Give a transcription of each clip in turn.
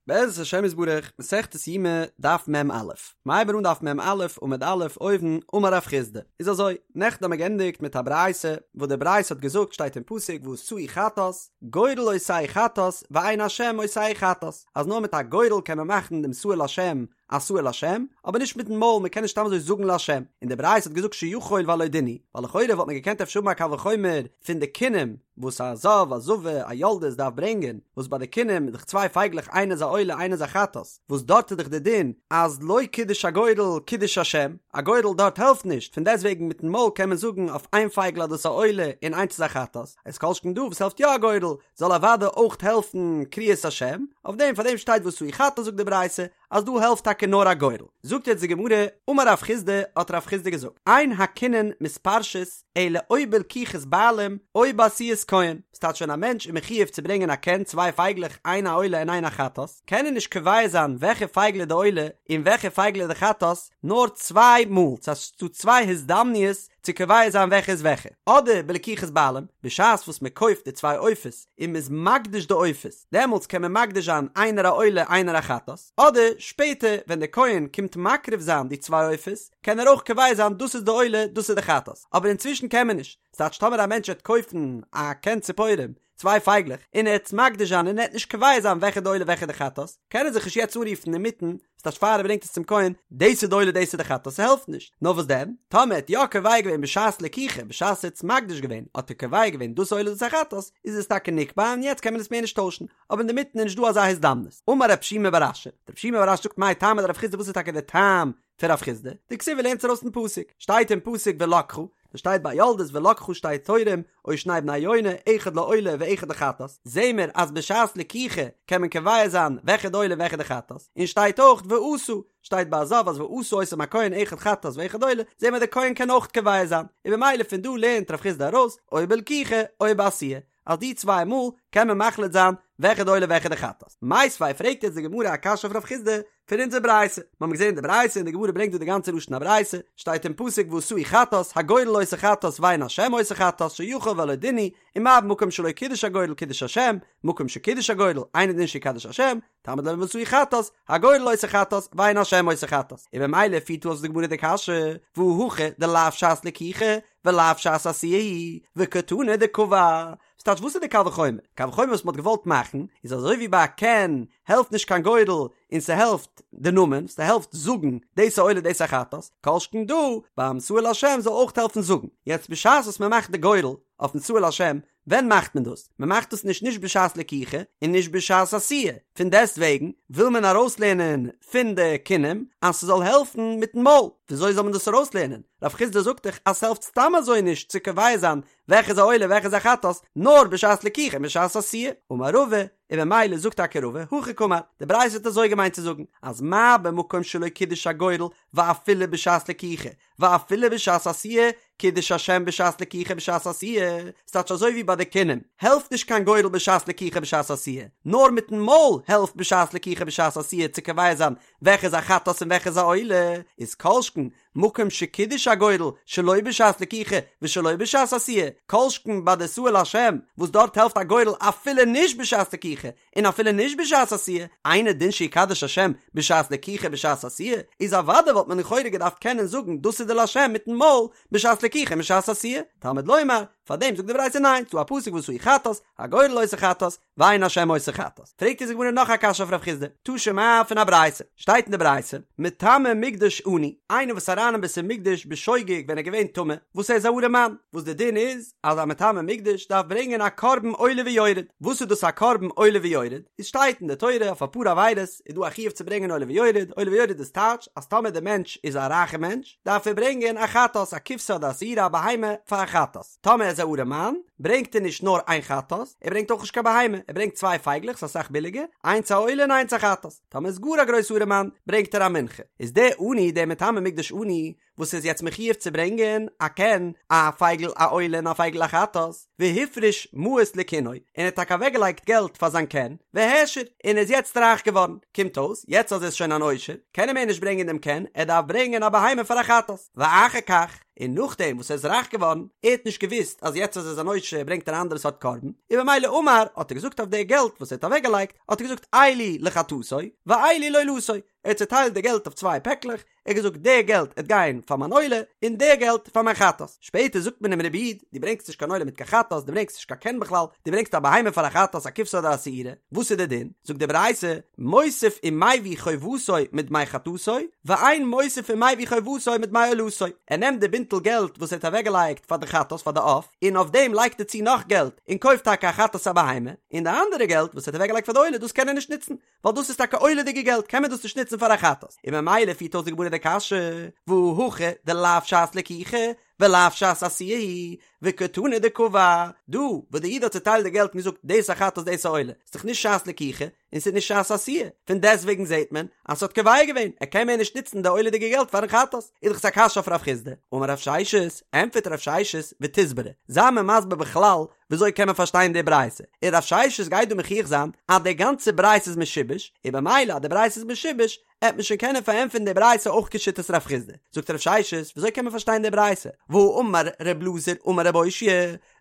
בעזרת השם יתברך, מסכת יומא, דף מ"א. מ'הייבן אן דף מ"א, עמוד א', אויבן, אמר רב חסדא. איז אזוי, נעכטן האבן מיר געענדיגט מיט א ברייתא, וואס די ברייתא האט געזאגט שטייט אין פסוק ועשהו חטאת, גורל עושהו חטאת, ואין השם עושהו חטאת, אז נאר מיט א גורל קען מען מאכן דעם שעיר לשם א שעיר לשם, אבער נישט מיטן מויל, מען קען נישט סתם אזוי זאגן לשם. און די ברייתא האט געזאגט שיכול והלא דין הוא, ווייל לכאורה וואלט מען געקענט אפשר האבן א קל וחומר פון די קינים, וואס א זב, א זבה, א יולדת דארף ברענגען, וואס ביי די קינים איז דאך צוויי פייגלעך איינע איז א עולה איינע איז א חטאת, וואס דארט איז דאך די דין אז לא קידש הגורל קידוש השם, א גורל דארט העלפט נישט, פון דעסט וועגן מיטן מויל קען מען זאגן אויף איין פייגל אז דאס איז א עולה און איינס איז א חטאת, איז כל שכן דא וואס העלפט יא א גורל, זאל אוודאי אויך העלפן קריאת השם, אויף דעם פאר דעם שטייט ועשהו חטאת זאגט די ברייתא אז דא העלפט טאקע נאר א גורל. זאגט יעצט די גמרא, אמר רב חסדא, האט רב חסדא געזאגט, אין הקינין מתפרשות אלא או בלקיחת בעלים או בעשיית כהן, ס'טייטש ווען א מענטש איז מחיוב צו ברענגען א קן, צוויי פייגלעך, איין א עולה און איין א חטאת, קען ער נישט קובע זיין וועלכע פייגל איז די עולה און וועלכע פייגל איז די חטאת, נאר צוויי מאל, ס'טייטש ס'דא צוויי הזדמנויות צו קובע זיין וועלכע איז וועלכע, אדער בלקיחת בעלים, בשעת וואס מען קויפט די צוויי עופות און מען איז מקדיש די עופות, דעמאלטס קען מען מקדיש זיין איינער א עולה איינער א חטאת, אדער שפעטער ווען דער כהן קומט מקריב זיין די צוויי עופות, קען ער אויך קובע זיין דאס איז די עולה דאס איז די חטאת, אבער אינצווישן קען מען נישט, ס'טייטש טאמער א מענטש וועט קויפן א קן ציפורים, צוויי פייגלעך, און ער וועט עס מקדיש זיין און ער וועט נישט קובע זיין וועלכע די עולה וועלכע די חטאת, קען ער זיך נישט יעצט אנרופן אינמיטן, ס'טייטש פאר ער ברענגט עס צום כהן, דאס איז די עולה דאס איז די חטאת, ס'העלפט נישט. נאר וואס דען? טאמער ער האט יא קובע געווען בשעת לקיחה, בשעת ער האט עס מקדיש געווען, האט ער קובע געווען דאס עולה דאס א חטאת, איז עס טאקע נקבע און יעצט קען מען עס מער נישט טוישן, אבער אינדערמיטן איז נישט דא אזא הזדמנות. אמר רב שימי בר אשי, רב שימי בר אשי זאגט מאי טעמא דרב חסדא וואס איז טאקע דער טעם פון רב חסדא, דכתיב ער לערנט עס ארויס פון פסוק, שטייט אין פסוק ולקחה, דאס שטייט ביי יולדת ולקחה שתי תורים או שני בני יונה אחד לעולה ואחד לחטאת, זעהן מיר אז בשעת לקיחה קען מען קובע זיין וועלכע די עולה און וועלכע די חטאת, און שטייט אויך ועשה, שטייט ביי א זב אז ועשה אותם הכהן אחד חטאת ואחד עולה, זעהן מיר די כהן קען אויך קובע זיין, און במילא פון דא לערנט רב חסדא ארויס או בלקיחה או בעשיה, אז די צוויי מאל קען מען מחליט זיין וועלכע די עולה וועלכע די חטאת. מיתיבי פרעגט יעצט די גמרא א קשיא אויף רב חסדא פון אונזער ברייתא, מיר האבן געזען די ברייתא און די גמרא ברענגט דא די גאנצע לשון הברייתא, שטייט אין פסוק ועשהו חטאת, הגורל עושה חטאת ואין השם עושה חטאת שיכול והלא דין הוא, ומה במקום שלא קידש הגורל קידש השם, מקום שקידש הגורל, אינו דין שיקדש השם, תלמוד לומר ועשהו חטאת, הגורל עושה חטאת, ואין השם עושה חטאת. און במילא פירט אויס די גמרא די קשיא, והא הכא דלאו שעת לקיחה, ולאו שעת עשיה היא, וקתני דקבע. ס'טייטש וואס איז די קל וחומר? קל וחומר וואס מ'האט געוואלט מאכן, איז אזוי ווי ביי א קן העלפט נישט קיין גורל און ס'העלפט די נאמען, ס'העלפט זאגן דאס איז עולה דאס איז א חטאת, כל שכן דא ביים שעיר לשם זאל אויך העלפן זאגן. יעצט בשעת וואס מ'מאכט די גורל אויפן שעיר לשם, ווען מאכט מען דאס? מען מאכט דאס נישט נישט בשעת לקיחה און נישט בשעת עשיה, פון דעסט וועגן וויל מען ארויסלערנען פון די קינים אז ס'זאל העלפן מיטן מויל, וויאזוי זאל מען דאס ארויסלערנען? רב חסדא זאגט דאך אז ס'העלפט סתם אזוי נישט צו קובע זיין וועלכע איז א עולה וועלכע איז א חטאת, נאר בשעת לקיחה און בשעת עשיה. אמר רבא, און במילא זאגט טאקע רבא, הכי קאמר, די ברייתא האט אזוי געמיינט צו זאגן, אז מה במקום שלא קידש הגורל ואפילו בשעת לקיחה, ואפילו בשעת עשיה, קידש השם בשעת לקיחה בשעת עשיה, ס'טייטש אזוי ווי ביי די קינים, העלפט נישט קיין גורל בשעת לקיחה בשעת עשיה, נאר מיטן מויל העלפט בשעת לקיחה בשעת עשיה צו קובע זיין וועלכע איז א חטאת און וועלכע איז א עולה, איז כל שכן מקום שקידש הגורל שלא בשעת לקיחה ושלא בשעת עשיה, כל שכן ביי די שעיר לשם וואס דארט העלפט א גורל אפילו נישט בשעת לקיחה און אפילו נישט בשעת עשיה, אינו דין שיקדש השם בשעת לקיחה בשעת עשיה, איז אוודאי וואלט מען לכאורה געדארפט קענען זאגן דאס איז די לשם מיטן מויל בשעת לקיחה און בשעת עשיה, תלמוד לומר, פארדעם זאגט די ברייתא ניין, ס'דא א פסוק ועשהו חטאת, הגורל עושה חטאת, ואין השם עושה חטאת. פרעגט אונז די גמרא נאך א קשיא אויף רב חסדא, תא שמע פון א ברייתא, שטייט אין די ברייתא, מטמא מקדש עני, איינער וואס איז אריין אין בית המקדש בשוגג ווען ער איז געווען טמא, וואס ער איז א ארעמאן, וואס די דין איז אז א מטמא מקדש דארף ברענגען א קרבן עולה ויורד, וואס איז דאס א קרבן עולה ויורד? איז שטייט אין די תורה אויף אפאר עבירות איז דא א חיוב צו ברענגען עולה ויורד, עולה ויורד איז טייטש אז טאמער די מענטש איז א רייכע מענטש דארף ער ברענגען א חטאת, א כבשה אדער א שעירה א בהמה פאר א חטאת, טאמער ער איז א ארעמאן ברענגט ער נישט נאר איין חטאת, ער ברענגט אויך נישט קיין בהמה, ער ברענגט צוויי פייגלעך ס'איז אסאך ביליגער, איינס א עולה און איינס א חטאת, טאמער איז גאר א גרויס ארעמאן ברענגט ער א מנחה, איז דער עני דער מטמא מקדש עני וואס איז יעצט מחיוב צו ברענגען א קן, א פייגל א עולה און א פייגל א חטאת, והפריש מעות לקינו, און ער האט טאקע אוועקגעלייגט געלט פאר זיין קן, והעשיר, און ער איז יעצט רייך געווארן, קומט אויס, יעצט אז ער איז שוין אן עושר, קען ער מער נישט ברענגען דעם קן, ער דארף ברענגען א בהמה פאר א חטאת, ואחר כך. און נאכדעם וואס ער איז רייך געווארן, ער האט נישט געוואוסט אז יעצט אז ער איז אן עושר ברענגט ער א אנדערע סארט קרבן, און במילא אמר, האט ער געזאגט אויף די געלט וואס ער האט אוועקגעלייגט, האט ער געזאגט אלו לחטאתו ואלו לעולתו, ער האט צעטיילט די געלט אויף צוויי פעקלעך, ער האט געזאגט די געלט עט גיין פאר מיין עולה און די געלט פאר מיין חטאת, שפעטער זאגט מען אים רבי איד דו ברענגסט נישט קיין עולה מיט קיין חטאת, דו ברענגסט נישט קיין קן בכלל, דו ברענגסט א בהמה פאר א חטאת א כבשה אדער א שעירה, וואס איז די דין? זאגט די ברייתא, מוסיף ומביא חובתו מדמי חטאתו, ואין מוסיף ומביא חובתו מדמי עולתו, ער נעמט די בינטל געלט וואס ער האט אוועקגעלייגט פאר די חטאת פאר די עוף, און אויף דעם לייגט ער צו נאך געלט און קויפט טאקע א חטאת א בהמה, און די אנדערע געלט וואס ער האט אוועקגעלייגט פאר די עולה דאס קען ער נישט נוצן, ווייל דאס איז טאקע עולה'דיגע געלט קען מען דאס נישט נוצן פאר א חטאת, און ממילא פירט אויס די גמרא די קשיא, והא הכא דלאו שעת לקיחה ולאו שעת עשיה היא, וקתני דקבע, דא וואס די איד האט צוטיילט די געלט און געזאגט דאס א חטאת דאס א עולה, איז דאך נישט שעת לקיחה און ס'איז נישט שעת עשיה, פון דעסטוועגן זעט מען אז ס'האט קובע געווען, ער קען מער נישט נוצן די עולה'דיגע געלט פארן חטאת, איז דאך עס א קשיא אויף רב חסדא, אמר רב ששת, ענטפערט רב ששת, ותסברא, זיי מיר מסביר בכלל וויאזוי קען מען פארשטיין די ברייתא? און רב ששת גייט דא מוכיח זיין אז די גאנצע ברייתא איז משובש, און במילא אז די ברייתא איז משובש, עט מען שוין קענען פארענטפערן די ברייתא אויך כשיטת רב חסדא. זאגט רב ששת, וויאזוי קען מען פארשטיין די ברייתא? והאמר ר' אלעזר אמר רב אושעיא,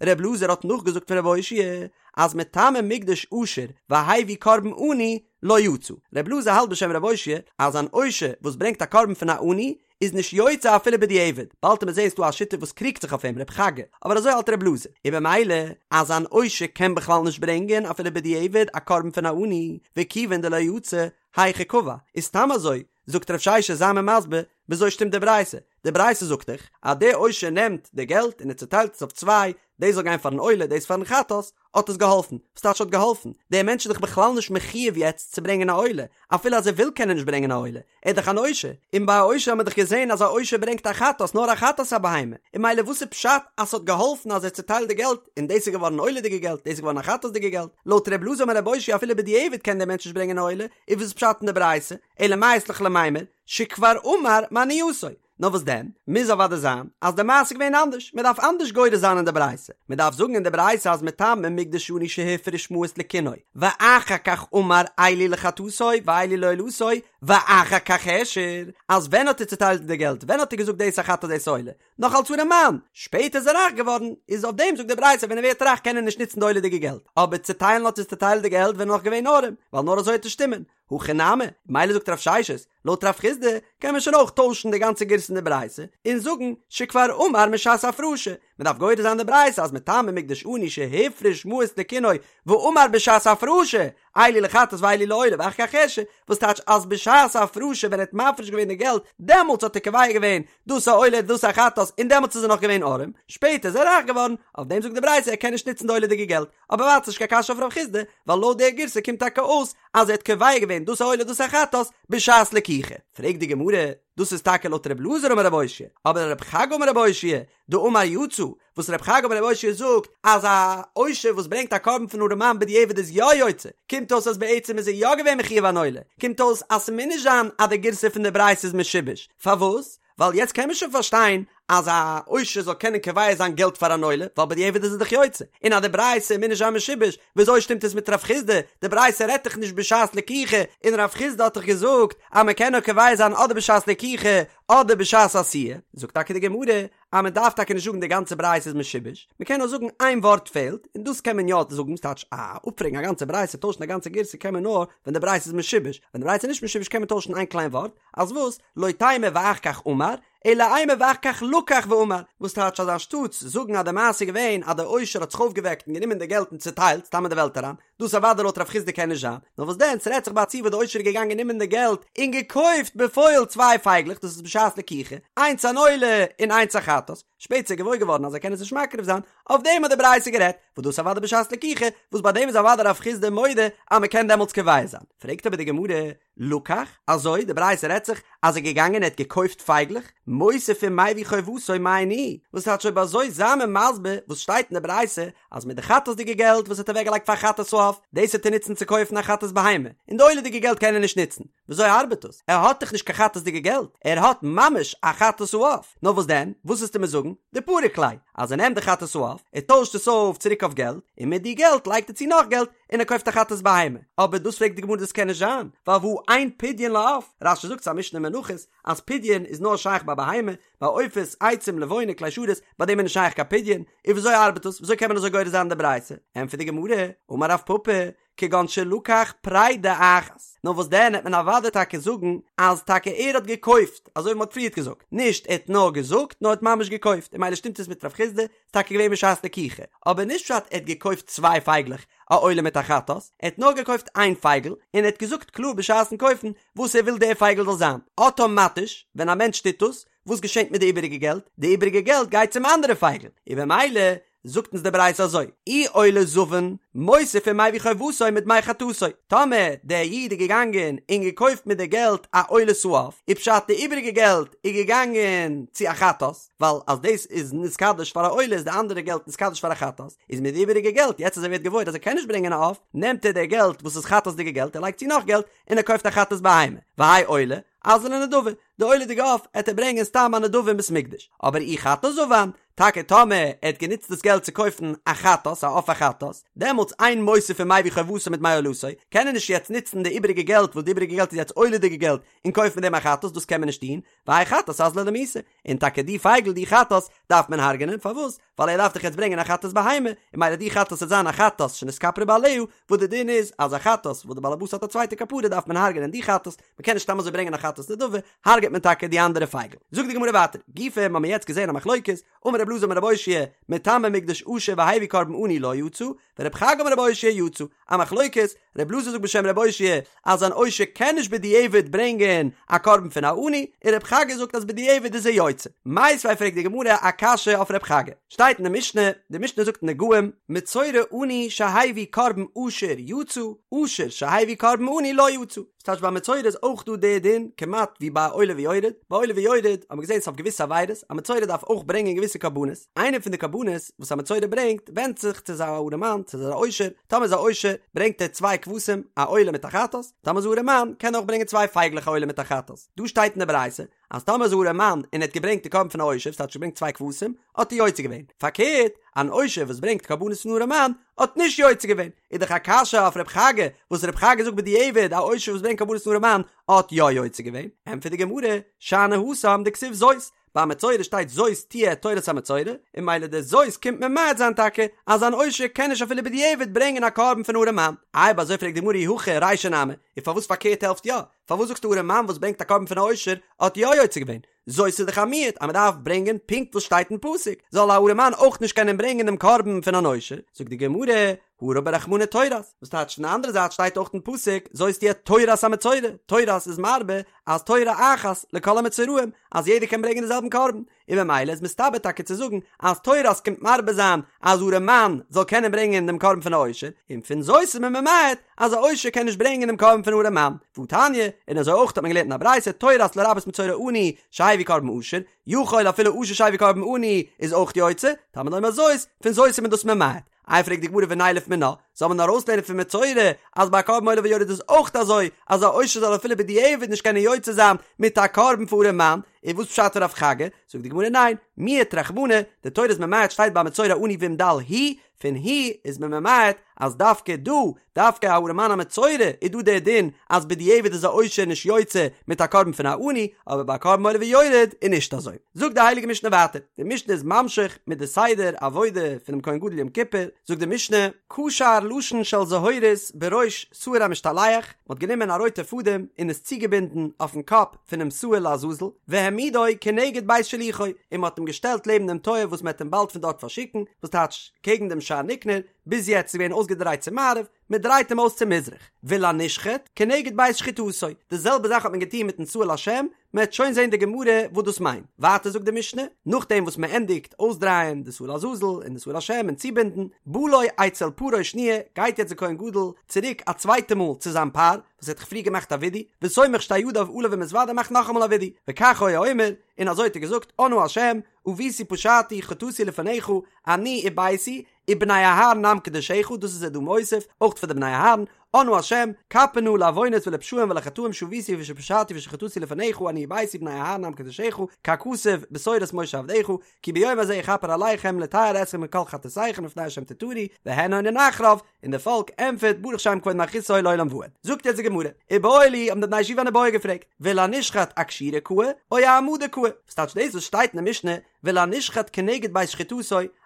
ר' אלעזר האט נאכגעזאגט פון רב אושעיא, אז מטמא מקדש עשיר והביא קרבן עני לא יצא. ר' אלעזר האלט בשם רב אושעיא אז אן עושר וואס ברענגט א קרבן פון א עני איז נישט יוצא אפילו בדיעבד, באלד עט מען זעהן ס'דא א שיטה וואס קריגט זיך אויף אים, רב חגא, אבער אזוי האלט רב אלעזר, און במילא אז אן עושר קען בכלל נישט ברענגען אפילו בדיעבד א קרבן פון א עני, וכיוון דלא יצא, היכי קבע, איז סתם אזוי, זאגט רב ששת זיי מיר מסביר, וויאזוי שטימט די ברייתא? די ברייתא זאגט דאך אז דער עושר נעמט די געלט און ער צוטיילט עס אויף צוויי, דאס זאל גיין פארן עולה דאס פארן חטאת, האט עס געהאלפן? וואס טייטש האט געהאלפן? דער מענטש איז דאך בכלל נישט מחויב יעצט צו ברענגען א עולה, אפילו אז ער וויל קען ער נישט ברענגען א עולה, ער איז דאך אן עושר, און ביי א עושר האט מען דאך געזען אז א עושר ברענגט א חטאת, נאר א חטאת א בהמה, און ממילא וואס איז פשט אז ס'האט געהאלפן אז ער האט צוטיילט די געלט, און דאס איז געווארן עולה'דיגע געלט, דאס איז געווארן א חטאת'דיגע געלט, לויט ר' אלעזר אמר רב אושעיא אפילו בדיעבד קען דער מענטש נישט ברענגען א עולה, איז וואס איז פשט אין די ברייתא, אלא מאי אית לך למימר, שכבר אמר מעניותו, נאר וואס דען? מוז אוודאי זיין אז די מעשה איז געווען אנדערש, מען דארף אנדערש גורס זיין אין די ברייתא, מען דארף זאגן אין די ברייתא אז מטמא מקדש עני שהפריש מעות לקינו, ואחר כך אמר אלו לחטאתו ואלו לעולתו, ואחר כך העשיר, אז ווען האט ער צוטיילט די געלט, ווען האט ער געזאגט דאס א חטאת דאס עולה, נאך אלס ארעמאן, שפעטער איז ער רייך געווארן, איז אויף דעם זאגט די ברייתא ווען ער ווערט רייך קען ער נישט נוצן די עולה'דיגע געלט, אבער צוטיילן האט ער צוטיילט די געלט ווען ער נאך געווען ארעם, ווייל נאר אזוי וועט עס שטימען, הכי נמי, מילא זאגט רב ששת, לויט רב חסדא קען מען שוין אויך טוישן די גאנצע גירסא אין די ברייתא און זאגן שכבר אמר משעת הפרשה, מען דארף גורס זיין די ברייתא אז מטמא מקדש עני שהפריש מעות לקינו ואמר בשעת הפרשה אלו לחטאת ואלו לעולה ואחר כך העשיר, וואס טייטש אז בשעת הפרשה ווען ער האט מפריש געווען די געלט דעמאלטס האט ער קובע געווען דאס א עולה דאס א חטאת און דעמאלטס איז ער נאך געווען ארעם, שפעטער איז ער רייך געווארן, אויף דעם זאגט די ברייתא ער קען נישט נוצן די עולה'דיגע געלט. אבער ווייטער נישט קיין קשיא אויף רב חסדא, ווייל לויט דער גירסא קומט טאקע אויס אז ער האט קובע געווען דאס א עולה דאס א חטאת בשעת לקיחה. פרעגט די גמרא, דאס איז טאקע לויט רב אלעזר אמר רב אושעיא, אבער רב חגא אמר רב אושעיא, דאמר יצא, וואס רב חגא אמר רב אושעיא זאגט אז א עושר וואס ברענגט א קרבן פון ארעמאן בדיעבד איז יא יוצא, קומט אויס אז בעצם איז ער יא געווען מחויב אן עולה, קומט אויס אז ס'מוז נישט זיין אז די גירסא פון די ברייתא איז משובש, פארוואס? ווייל יעצט קען מען שוין פארשטיין אז א עושר זאל קענען קובע זיין געלט פאר אן עולה, ווייל בדיעבד איז ער דאך יוצא, און אז די ברייתא מוז נישט זיין משובש, וויאזוי שטימט עס מיט רב חסדא, די ברייתא רעדט דאך נישט בשעת לקיחה, און רב חסדא האט דאך געזאגט אז מען קען נאר קובע זיין אדער בשעת לקיחה אדער בשעת עשיה, זאגט טאקע די גמרא אז מען דארף טאקע נישט זאגן די גאנצע ברייתא איז משובש, מען קען נאר זאגן איין ווארט פעלט, און דאס קען מען יא זאגן, ס'טייטש א אפפרעגן א גאנצע ברייתא, טוישן א גאנצע גירסא קען מען נאר ווען די ברייתא איז משובש, ווען די ברייתא איז נישט משובש קען מען טוישן איין קליין ווארט, אז וואס? לא תימא ואחר כך אמר, אלא אימא ואחר כך לקח ואמר, וואס טייטש אז אנשטאטס זאגן אז די מעשה איז געווען אז דער עושר האט זיך אויפגעוועקט און גענומען די געלט און צוטיילט סתם אין די וועלט אריין, דאס אוודאי לויט רב חסדא קען נישט זיין, נאר וואס דען ס'רעדט זיך ביי א ציור וואס די עושר איז געגאנגען נעמען די געלט און געקויפט בפועל צוויי פייגלעך דאס איז בשעת לקיחה, איינס אן עולה און איינס א חטאת, שפעטער איז ער געוואויר געווארן אז ער קען עס נישט מקריב זיין, אויף דעם האט די ברייתא גערעדט, וואס דאס אוודאי בשעת לקיחה, וואס ביי דעם איז אוודאי רב חסדא מודה אז מ'קען דעמאלטס קובע זיין. פרעגט אבער די גמרא, לקח, אזוי, די ברייתא רעדט זיך אז ער איז געגאנגען ער האט געקויפט פייגלעך, מוסיף ומביא חובתו מאי ניהו, וואס טייטש אויב אזוי זיי מיר מסביר וואס שטייט אין די ברייתא אז מיט די חטאת'דיגע געלט וואס ער האט אוועקגעלייגט פאר חטאת העוף, דאס וועט ער נוצן צו קויפן א חטאת בהמה, און די עולה'דיגע געלט קען ער נישט נוצן, וויאזוי ארבעט דאס? ער האט דאך נישט קיין חטאת'דיגע געלט, ער האט ממש א חטאת העוף, נאר וואס דען, וואס וועסטו מיר זאגן? דפריק ליה, אז ער נעמט די חטאת העוף, ער טוישט עס אויף צוריק אויף געלט, און מיט די געלט לייגט ער צו נאך געלט, און ער קויפט א חטאת בהמה, אבער דאס פרעגט די גמרא דאס קען נישט זיין, ווייל והא אין פדיון לעוף, רש"י זאגט ס'איז א משנה אין מנחות אז פדיון איז נאר שייך ביי בהמה, ביי עופות, עצים, לבונה, כלי שרת, ביי דעם איז נישט שייך קיין פדיון, און וויאזוי ארבעט דאס, וויאזוי קען מען אזוי גורס זיין די ברייתא? ענטפערט די גמרא, אמר רב פפא, כגון שלקח פרידה אחת, נאר וואס דען העט מען אוודאי טאקע זאגן אז טאקע ער האט געקויפט, אזוי ווי מען האט פריערט געזאגט, נישט ער האט נאר געזאגט נאר ער האט ממש געקויפט, און ממילא שטימט עס מיט רב חסדא, ס'איז טאקע געווען בשעת לקיחה, אבער נישט פשט ער האט געקויפט צוויי פייגלעך, א עולה מיט א חטאת, ער האט נאר געקויפט איין פייגל, און ער האט געזאגט קלאר בשעת'ן קויפן וואס ער וויל דער פייגל זאל זיין, אטאמאטיש ווען א מענטש טוט דאס, וואס געשענט מיט די איבעריגע געלט? די איבעריגע געלט גייט צום אנדערע פייגל, און במילא זאגט אונז די ברייתא אזוי, אי עולה זבן, מוסיף ומביא חובתו מדמי חטאתו, טאמער דער איד איז געגאנגען און געקויפט מיט די געלט א עולת העוף, איז פשט די איבעריגע געלט איז געגאנגען צו א חטאת, ווייל אז דאס איז נתקדש פאר א עולה איז די אנדערע געלט נתקדש פאר א חטאת, איז מיט די איבעריגע געלט, יעצט אז ער ווערט געוואויר אז ער קען נישט ברענגען א עוף, נעמט ער די געלט וואס איז חטאת'דיגע געלט ער לייגט צו נאך געלט און ער קויפט א חטאת בהמה, והאי עולה, אזלא לנדבה, די עולה'דיגע עוף עט ער ברענגען סתם א נדבה אין בית מקדש, אבער אי חטאת זבן, טאקע טאמער ער האט גענוצט דאס געלט צו קויפן א חטאת, א עוף א חטאת, דעמאלטס אין מוסיף ומביא חובתו מדמי עולתו, קען ער נישט יעצט נוצן די איבעריגע געלט וואס די איבעריגע געלט איז יעצט עולה'דיגע געלט און קויפן מיט דעם א חטאת, דאס קען מען נישט טון, והאי חטאת אזלא למיתה, און טאקע די פייגל די חטאת דארף מען הרג'נען, פארוואס? ווייל ער דארף דאך יעצט ברענגען א חטאת בהמה, און ממילא די חטאת וועט זיין א חטאת שנתכפרה בעליה, וואס די דין איז אז א חטאת וואס די בעלעבאס האט א צווייטע כפרה דארף מען הרג'נען די חטאת, מען קען נישט סתם אזוי ברענגען א חטאת נדבה, הרג'עט מען טאקע די אנדערע פייגל. זאגט די גמרא ווייטער, גופא האבן מיר יעצט געזען א מחלוקת, אמר רב אלעזר אמר רב אושעיא, מטמא מקדש עשיר והביא קרבן עני לא יצא, ורב חגא אמר רב אושעיא יצא, א מחלוקת, רב אלעזר זאגט בשם רב אושעיא אז אן עושר קען נישט בדיעבד ברענגען א קרבן פון א עני, און רב חגא זאגט אז בדיעבד איז ער יוצא. מיתיבי פרעגט די גמרא א קשיא אויף רב חגא, שטייט אין די משנה, די משנה זאגט אין נגעים, מצורע עני שהביא קרבן עשיר יצא, עשיר שהביא קרבן עני לא יצא. ס'טייטש ביי מצורע איז אויך דא די דין כמעט ווי ביי עולה ויורד, ביי עולה ויורד האט מען געזען ס'אויף געוויסע עבירות, א מצורע דארף אויך ברענגען געוויסע קרבנות, איינע פון די קרבנות וואס א מצורע ברענגט ווענדט זיך צו איז א ארעמאן צו איז א עושר, טאמער איז א עושר ברענגט ער צוויי כבשים א עולה מיט א חטאת, טאמער איז א ארעמאן קען ער אויך ברענגען צוויי פייגלעך א עולה מיט א חטאת, דא שטייט אין די ברייתא אז טאמער איז א ארעמאן און ער האט געברענגט די קרבן פון א עושר ס'טייטש געברענגט צוויי כבשים האט ער יוצא געווען, פארקערט אן עושר וואס ברענגט קרבנות פון ארעמאן האט נישט יוצא געווען, איז דאך א קשיא אויף רב חגא וואס רב חגא זאגט בדיעבד א עושר וואס ברענגט קרבנות פון ארעמאן האט יא יוצא געווען, ענטפערט די גמרא, שאני התם דכתיב זאת, ביי מצורע שטייט זאת תהיה תורת המצורע, און ממילא די זאת קומט ממעט זיין טאקע אז אן עושר קען נישט אפילו בדיעבד ברענגען א קרבן פון ארעמאן, אויב אזוי פרעגט די גמרא אי הכי רישא נמי, און פארוואס פארקערט העלפט יא? פארוואס זאגסטו ארעמאן וואס ברענגט א קרבן פון א עושר האט יא יוצא געווען? זאת איז דאך א מיעוט אז מען דארף ברענגען פונקט וואס שטייט אין פסוק, זאל א ארעמאן אויך נישט קענען ברענגען דעם קרבן פון אן עושר? זאגט די גמרא, הא רבי רחמנא תורת, וואס טייטש פון די אנדערע זייט שטייט אויך אין פסוק זאת תהיה תורת המצורע, תורת איז מרבה אז תורה אחת לכל המצורעים, אז יעדער קען ברענגען די זעלבן קרבן, און ממילא איז מסתבר טאקע צו זאגן אז תורת קומט מרבה זיין אז ארעמאן זאל קענען ברענגען דעם קרבן פון א עושר, און פון זאת איז מען ממעט אז א עושר קען נישט ברענגען דעם קרבן פון ארעמאן, והתניא, און אזוי אויך האט מען געלערנט אין א ברייתא תורת לרבות מצורע עני שהביא קרבן עשיר, יכול אפילו עשיר שהביא קרבן עני איז אויך יוצא, תלמוד לומר זאת, פון זאת איז מען דאס ממעט. איי פרעגט די גמרא ונילף מינה, זאל מען ארויסלערנען פון מצורע אז ביי א קרבן עולה ויורד איז אויך אזוי אז א עושר זאל אפילו בדיעבד נישט קענען יוצא זיין מיט א קרבן פון ארעמאן, און וואס פשט פון רב חגא? זאגט די גמרא ניין, מיעט רחמנא, די תורה איז ממעט שטייט ביי מצורע עני ואם דל הוא, פון הוא איז מען ממעט אז דווקא דא, דווקא א ארעמאן א מצורע איז דא דער דין אז בדיעבד איז א עושר נישט יוצא מיט א קרבן פון א עני, אבער ביי א קרבן עולה ויורד איז נישט אזוי. זאגט די הייליגע משנה ווייטער, די משנה איז ממשיך מיט די סדר עבודה פונעם כהן גדול יום כיפור, זאגט די משנה, קשר לשון של זהורית בראש שעיר המשתלח, מען האט גענומען א רויטע פאדעם און עס צוגעבינדן אויפן קאפ פונעם שעיר לעזאזל, והעמידו כנגד בית שילוחו, און מען האט אים געשטעלט לעבן דעם טויער וואס מען וועט אים באלד פון דארט פארשיקן, וואס טייטש קעגן דעם שער ניקנור, ביז יעצט איז געווען אויסגעדרייט צו מערב, מען דרייט אים אויס צו מזרח, ולנשחט, כנגד בית שחיטתו, די זעלבע זאך האט מען געטון מיטן שעיר לשם, מען וועט שוין זען די גמרא וואס דאס מיינט, ווייטער זאגט די משנה, נאכדעם וואס מען ענדיגט אויסדרייען די שעיר לעזאזל און די שעיר לשם און צובינדן, בא לו אצל פרו שניה, גייט יעצט די כהן גדול צוריק א צווייטע מאל צו זיין פר, וואס ער האט דאך פריער געמאכט א ווידוי, וסומך שתי ידיו עליו ומתודה מאכט נאכאמאל א ווידוי, וכך היה אומר, און אזוי האט ער געזאגט, אנא השם, עויתי פשעתי חטאתי לפניך, אני וביתי, ובני אהרן עם קדושיך, דאס איז ער דא מוסיף, אויך פאר די בני אהרן, אנא השם, כפר נא לעוונות ולפשעים ולחטאים שעוויתי ושפשעתי ושחטאתי לפניך אני וביתי ובני אהרן עם קדשך, ככתוב בתורת משה עבדך, כי ביום הזה יכפר עליכם לטהר אתכם מכל חטאתיכם לפני השם תטהרו, והן עונין אחריו, און די פאלק ענטפערט ברוך שם כבוד מלכותו לעולם ועד. זאגט יעצט די גמרא, איבעיא להו האבן די בני ישיבה אן איבעיא געפרעגט, ולנשחט אקשירה קאי או אהעמדה קאי, וואס טייטש דאס וואס שטייט אין די משנה ולנשחט כנגד בית שחיטתו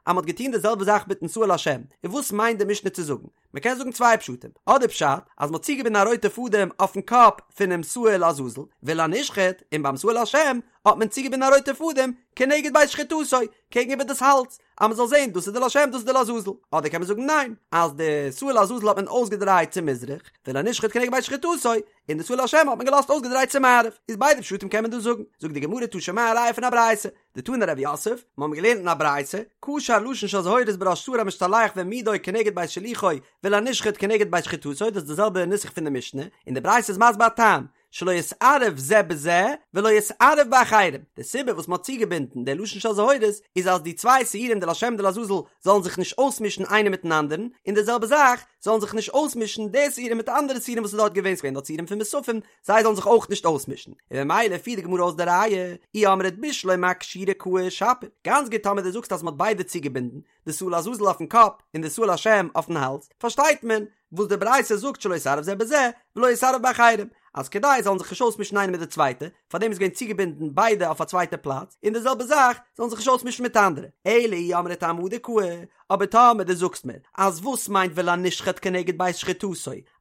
אז מען האט געטון די זעלבע זאך מיטן שעיר לשם, און וואס מיינט די משנה צו זאגן? מען קען זאגן צוויי פשטים, אדער פשט אז מען האט צוגעבינדן א רויטע פאדעם אויפן קאפ פונעם שעיר לעזאזל, ולנשחט, און ביים שעיר לשם האט מען צוגעבינדן א רויטע פאדעם כנגד בית שחיטתו, קעגן איבער דאס האלז, אז מען זאל זען דאס איז די לשם דאס איז די לעזאזל, אדער קען מען זאגן ניין, אז די שעיר לעזאזל האט מען אויסגעדרייט צו מזרח, ולנשחט כנגד בית שחיטתו, און די שעיר לשם האט מען געלאזט אויסגעדרייט צו מערב, איז ביידע פשטים קען מען דא זאגן, זאגט די גמרא תא שמע א ראיה פון א ברייתא, דתני רב יוסף, מיר האבן געלערנט אין א ברייתא, קשר לשון של זהורית בראש שעיר המשתלח והעמידו כנגד בית שלוחו ולנשחט כנגד בית שחיטתו, דאס איז די זעלבע נוסח פון די משנה, און די ברייתא איז מסביר א טעם, שלא יתערב זה בזה ולא יתערב באחרים, די סיבה וואס מען האט צוגעבינדן די לשון של זהורית איז אז די צוויי שעירים די לשם די לעזאזל זאלן זיך נישט אויסמישן איינער מיטן אנדערן, און די זעלבע זאך זאלן זיך נישט אויסמישן די שעירים מיט אנדערע שעירים וואס איז דארט געווען, ס'געווען דארט שעירים פון מוספים, זיי זאלן זיך אויך נישט אויסמישן, און ממילא פירט די גמרא אויס די ראיה, אי אמרת בשלמא אקשירה קאי שפיר, גאנץ גוט טאמער דו זאגסט אז מ'האט ביידע צוגעבינדן, די שעיר לעזאזל אויפן קאפ און די שעיר לשם אויפן האלז, פארשטייט מען וואס די ברייתא זאגט שלא יתערב זה בזה ולא יתערב באחרים, אז כדי זאלן זיך נישט אויסמישן איינער מיט די צווייטע, פארדעם איז געווען צוגעבינדן ביידע אויף א צווייטע פלאץ, און די זעלבע זאך זאלן זיך נישט אויסמישן מיט אנדערע, אלא אי אמרת אהעמדה קאי, אבער טאמער דו זאגסט מיר אז וואס מיינט ולנשחט כנגד בית שחיטתו,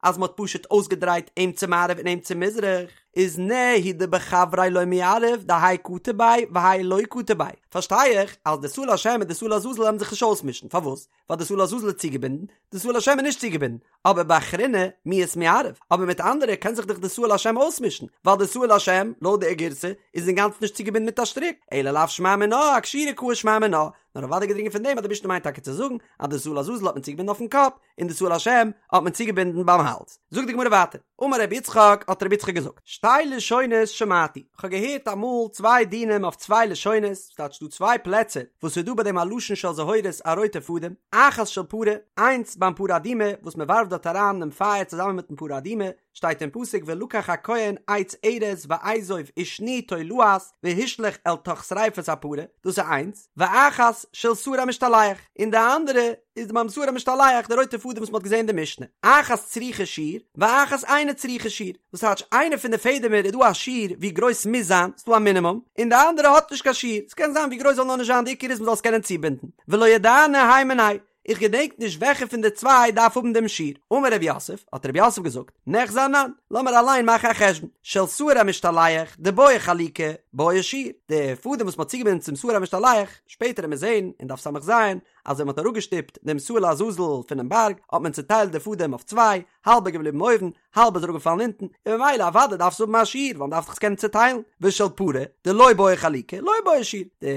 אז מ'האט פשוט אויסגעדרייט אים צו מערב און אים צו מזרח, איז נהי דבחבריה לא מיערב דהאי קטר ביה והאי לא קטר ביה, פארשטיי איך אז די שעיר לשם און די שעיר לעזאזל וועלן זיך נישט אויסמישן, פארוואס? ווייל די שעיר לעזאזל איז צוגעבינדן, די שעיר לשם איז נישט צוגעבינדן, אבער באחריני מיהת מיערב, אבער מיט אנדערע קען זיך דאך די שעיר לשם אויסמישן, ווייל די שעיר לשם, לויט די גירסא, איז אינגאנצן נישט צוגעבינדן מיט א שטריק, אלא לאו שמע מינה, אקשירה קאי שמע מינה, נאר אוודאי געדרינגען פון דעם אז די משנה מיינט טאקע צו זאגן אז די שעיר לעזאזל האט מען צוגעבינדן אויפן קאפ, און די שעיר לשם האט מען צוגעבינדן ביים האלז. זאגט די גמרא ווייטער, אמר רבי יצחק, האט רבי יצחק געזאגט, שתי לשונות שמעתי, כ'האב געהערט אמאל צוויי דינים אויף צוויי לשונות, ס'טייטש דא צוויי פלעצער וואס איז דא ביי דעם א לשון של זהורית א רויטע פאדעם, אחת של פרה, איינס ביים פרה אדומה וואס מען ווארפט דארט אריין דעם פייער צוזאמען מיטן פרה אדומה, שטייט אין פסוק ולקח הכהן עץ ארז ואזוב ושני תולעת והשליך אל תוך שריפת הפרה, דאס איז איינס, ואחת של שעיר המשתלח, און די אנדערע איז ביים שעיר המשתלח די רויטע פאדעם וואס מען האט געזען אין די משנה, אחת צריכה שיעור ואחת אינה צריכה שיעור, וואס טייטש איינע פון די פעדעמער איז דא א שיעור ווי גרויס ס'מוז זיין, ס'דא א מינימום, און די אנדערע האט נישט קיין שיעור, ס'קען זיין ווי גרויס זאל נאר נישט זיין די עיקר איז מ'זאל עס קענען צובינדן, ולא ידענא הי מינייהו, איך געדענק נישט וועלכע פון די צוויי דארף האבן דעם שיעור. אמר רב יוסף, האט רב יוסף געזאגט, ניחזי אנן, לאמיר אליין מאכן א חשבון, של שעיר המשתלח, דבעי חלוקה, בעי שיעור, די פאדעם וואס מ'האט צוגעבינדן צום שעיר המשתלח, שפעטער וועט מען זען אין דף ס"ז, אז ווען מ'האט אראפגעשטופט דעם שעיר לעזאזל פונעם בארג, האט מען צוטיילט די פאדעם אויף צוויי, האלב איז געבליבן אויבן, האלב איז אראפגעפאלן אונטן, און ממילא אוודאי דארף עס האבן א שיעור, ווייל מ'דארף דאך עס קענען צוטיילן, ושל פרה, דלא בעי חלוקה, לא בעי שיעור, די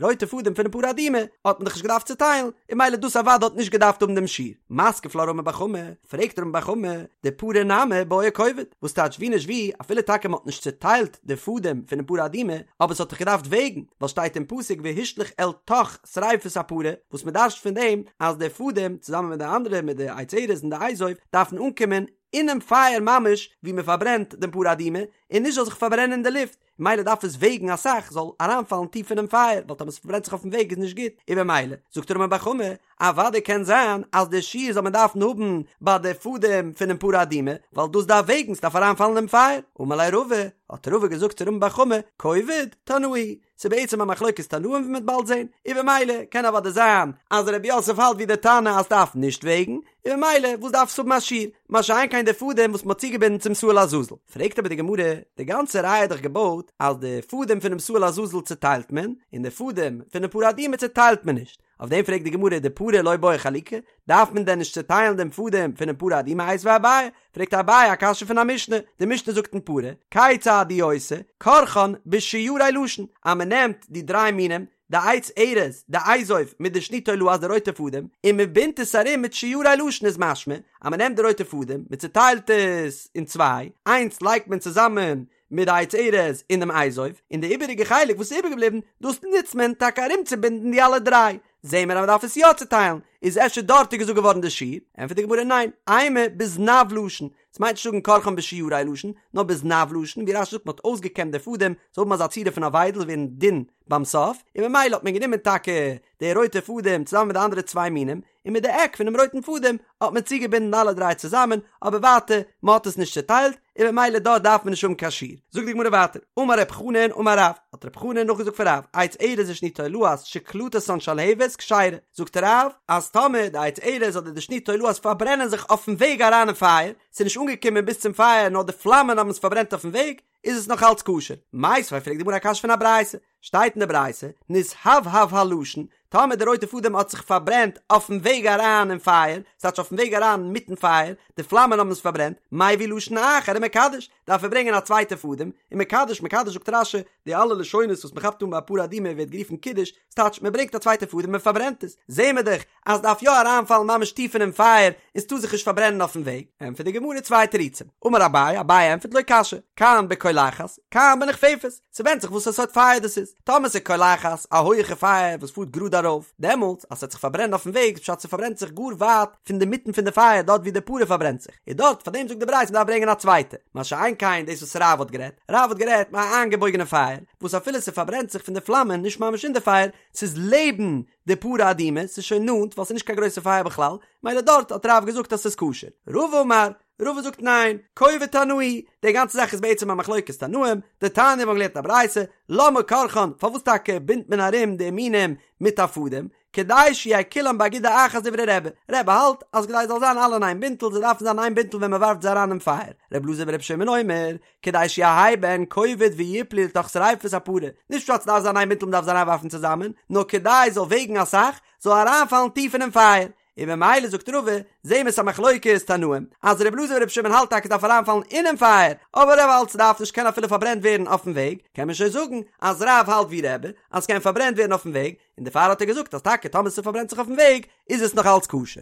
רויטע פאדעם פונעם פרה אדומה האט מען דאך נישט געדארפט צוטיילן, און ממילא דאס אוודאי האט נישט געדארפט האבן דעם שיעור. מתקיף לה רמי בר חמא, פרעגט רמי בר חמא, דפרה נמי בעי כובד, וואס טייטש ווי נישט ווי, אפילו טאקע מ'האט נישט צוטיילט די פאדעם פונעם פרה אדומה, אבער עס האט דאך געדארפט וועגן, ווייל שטייט אין פסוק והשליך אל תוך שריפת הפרה, וואס מען דרש'ט פון דעם אז די פאדעם צוזאמען מיט די אנדערע מיט די עץ ארז און די אזוב דארפן אנקומען אינעם פייער ממש ווי מען פארברענט דעם פרה אדומה און נישט זאל זיך פארברענען אין די לופט, ממילא דארף עס וועגן אסאך זאל אריינפאלן טיף אינעם פייער ווייל טאמער עס פארברענט זיך אויפן וועג איז נישט גוט, און במילא זאגט רמי בר חמא אוודאי קען זיין אז די שיעור זאל מען דארפן האבן ביי די פאדעם פונעם פרה אדומה ווייל דאס דארף וועגן ס'דארף אריינפאלן אינעם פייער, אמר ליה רבא, האט רבא געזאגט צו רמי בר חמא, כובד, תנאי ס'איז בעצם א מחלוקת תנאים ווי מ'וועט באלד זען, און במילא קען אוודאי זיין אז רב יוסף האלט ווי די תנא אז ס'דארף נישט וועגן, און במילא וואס דארף עס האבן א שיעור, מה שאין כן די פאדעם וואס מ'האט צוגעבינדן צום שעיר לעזאזל. פרעגט אבער די גמרא, די גאנצע ראיה איז דאך געבויט אז די פאדעם פונעם שעיר לעזאזל צוטיילט מען, און די פאדעם פונעם פרה אדומה צוטיילט מען נישט, אויף דעם פרעגט די גמרא דפרה לא בעי חלוקה, דארף מען דען נישט צוטיילן דעם פאדעם פונעם פרה אדומה? איתיביה אביי, פרעגט אביי א קשיא פון א משנה, די משנה זאגט אין פרה, כיצד הוא עושה, כורכן בשיירי לשון, אז מען נעמט די דריי מינים, די עץ ארז, די אזוב, מיט די שני תולעת די רויטע פאדעם, און מען בינדט עס ארום מיט שיירי לשון איז משמע, אז מען נעמט די רויטע פאדעם, מען צוטיילט עס אין צוויי, איינס לייגט מען צוזאמען מיט די עץ ארז און דעם אזוב, און די איבעריגע חלק וואס איז איבערגעבליבן, דאס נוצט מען טאקע ארומצובינדן די אלע דריי. זעהן מיר אז מ'דארף עס יא צוטיילן, איז אפשר דארט איז געזאגט געווארן די שיעור? ענטפערט די גמרא ניין, אימא בזנב לשון, ס'מיינט נישט זאגן כורכן בשיורי לשון, נאר בזנב לשון, ווי רש"י זאגט מ'האט אויסגעקעמט די פאדעם, זאל האבן אזא צורה פון א וויידל ווערן דין ביים סוף, און ממילא האט מען גענומען טאקע די רויטע פאדעם צוזאמען מיט די אנדערע צוויי מינים, און מיט די עק פונעם רויטן פאדעם האט מען צוגעבינדן אלע דריי צוזאמען, אבער ווייטער, מען האט עס נישט צוטיילט, און ממילא דארט דארף מען נישט האבן קיין שיעור. זאגט די גמרא ווייטער, אמר רב חנן אמר רב, האט רב חנן נאכגעזאגט פון רב, עץ ארז ושני תולעת שקלטתן שלהבת כשרה, זאגט רב, אז טאמער די עץ ארז אדער די שני תולעת פארברענען זיך אויפן וועג אריין אין פייער, ס'איז נישט אנגעקומען ביז צום פייער נאר די פלאמען האבן עס פארברענט אויפן וועג, איז עס נאך אלץ כשר. מיתיבי פרעגט די גמרא א קשיא פון א ברייתא, שטייט אין די ברייתא, נתהבהב הלשון, טאמער די רויטע פאדעם האט זיך פארברענט אויפן וועג אריין אין פייער, ס'טייטש אויפן וועג אריין מיטן פייער, די פלאמען האבן עס פארברענט, מביא לשון אחר ומקדש, דארף ער ברענגען א צווייטע פאדעם, ומקדש, מקדש זאגט רש"י, די אלע לשונות וואס מ'כאפט אן ביי פרה אדומה ווערט גערופן קידוש, ס'טייטש מ'ברענגט א צווייטע פאדעם און מ'פארברענט עס, זעהן מיר דאך אז ס'דארף יא אריינפאלן ממש טיף אינעם פייער און ס'טאר זיך נישט פארברענען אויפן וועג, ענטפערט די גמרא צוויי תירוצים, אמר אביי, אביי ענטפערט לא קשיא, כאן בקולחת, כאן בנכפפת, ס'ווענדט זיך וואס א סארט פייער דאס איז, טאמער ס'איז קולחת, א הויעכע פייער וואס פארט גראד ארויף, דעמאלטס אז ס'וועט זיך פארברענען אויפן וועג איז פשט ס'פארברענט זיך גאר ווייט פון די מיטן פון די פייער דארט ווי די פרה פארברענט זיך, איז דארט פאר דעם זאגט די ברייתא מ'דארף ברענגען א צווייטע, מה שאין כן דאס וואס רב האט גערעדט, רב האט גערעדט מיט א איינגעבויגענע פייער, וואס אפילו ס'פארברענט זיך פון די פלאמען נישט ממש אין די פייער, ס'איז לעבן די פרה אדומה, ס'איז שוין נאנט ווייל ס'איז נישט קיין גרויסע פייער בכלל, מילא דארט האט רב געזאגט אז ס'איז כשר. רבא אמר, רבא זאגט ניין, כובד תנאי, די גאנצע זאך איז בעצם א מחלוקת תנאים, דתניא מיר האבן געלערנט א ברייתא, למה כורכן, פארוואס טאקע בינדט מען ארום די מינים מיט א פאדעם, כדי שיהו כולם באגודה אחת דברי רבי, רבי האלט אז כדי זאל זיין אלע אין איין בינטל, זיי דארפן זיין איין בינטל ווען מען ווארפט זיי אריין אין פייער, ר' אלעזר בר' שמעון אומר, כדי שיהא בהן כובד ויפלו לתוך שריפת הפרה, נישט פשט ס'דארף זיין איין בינטל מ'דארף זיי אריינווארפן צוזאמען, נאר כדי ס'זאל וועגן אסאך, זאל אריינפאלן טיף אינעם פייער, און ממילא זאגט רבא, זעהן מיר ס'א מחלוקת תנאים, אז ר' אלעזר בר' שמעון האלט טאקע ס'דארף אריינפאלן אינעם פייער, אבער רבי האלט ס'דארף נישט קען אפילו פארברענט ווערן אויפן וועג, קען מען שוין זאגן אז רב האלט ווי רבי, אז ס'קען פארברענט ווערן אויפן וועג, און דערפאר האט ער געזאגט אז טאקע טאמער ס'פארברענט זיך אויפן וועג איז עס נאך אלץ כשר.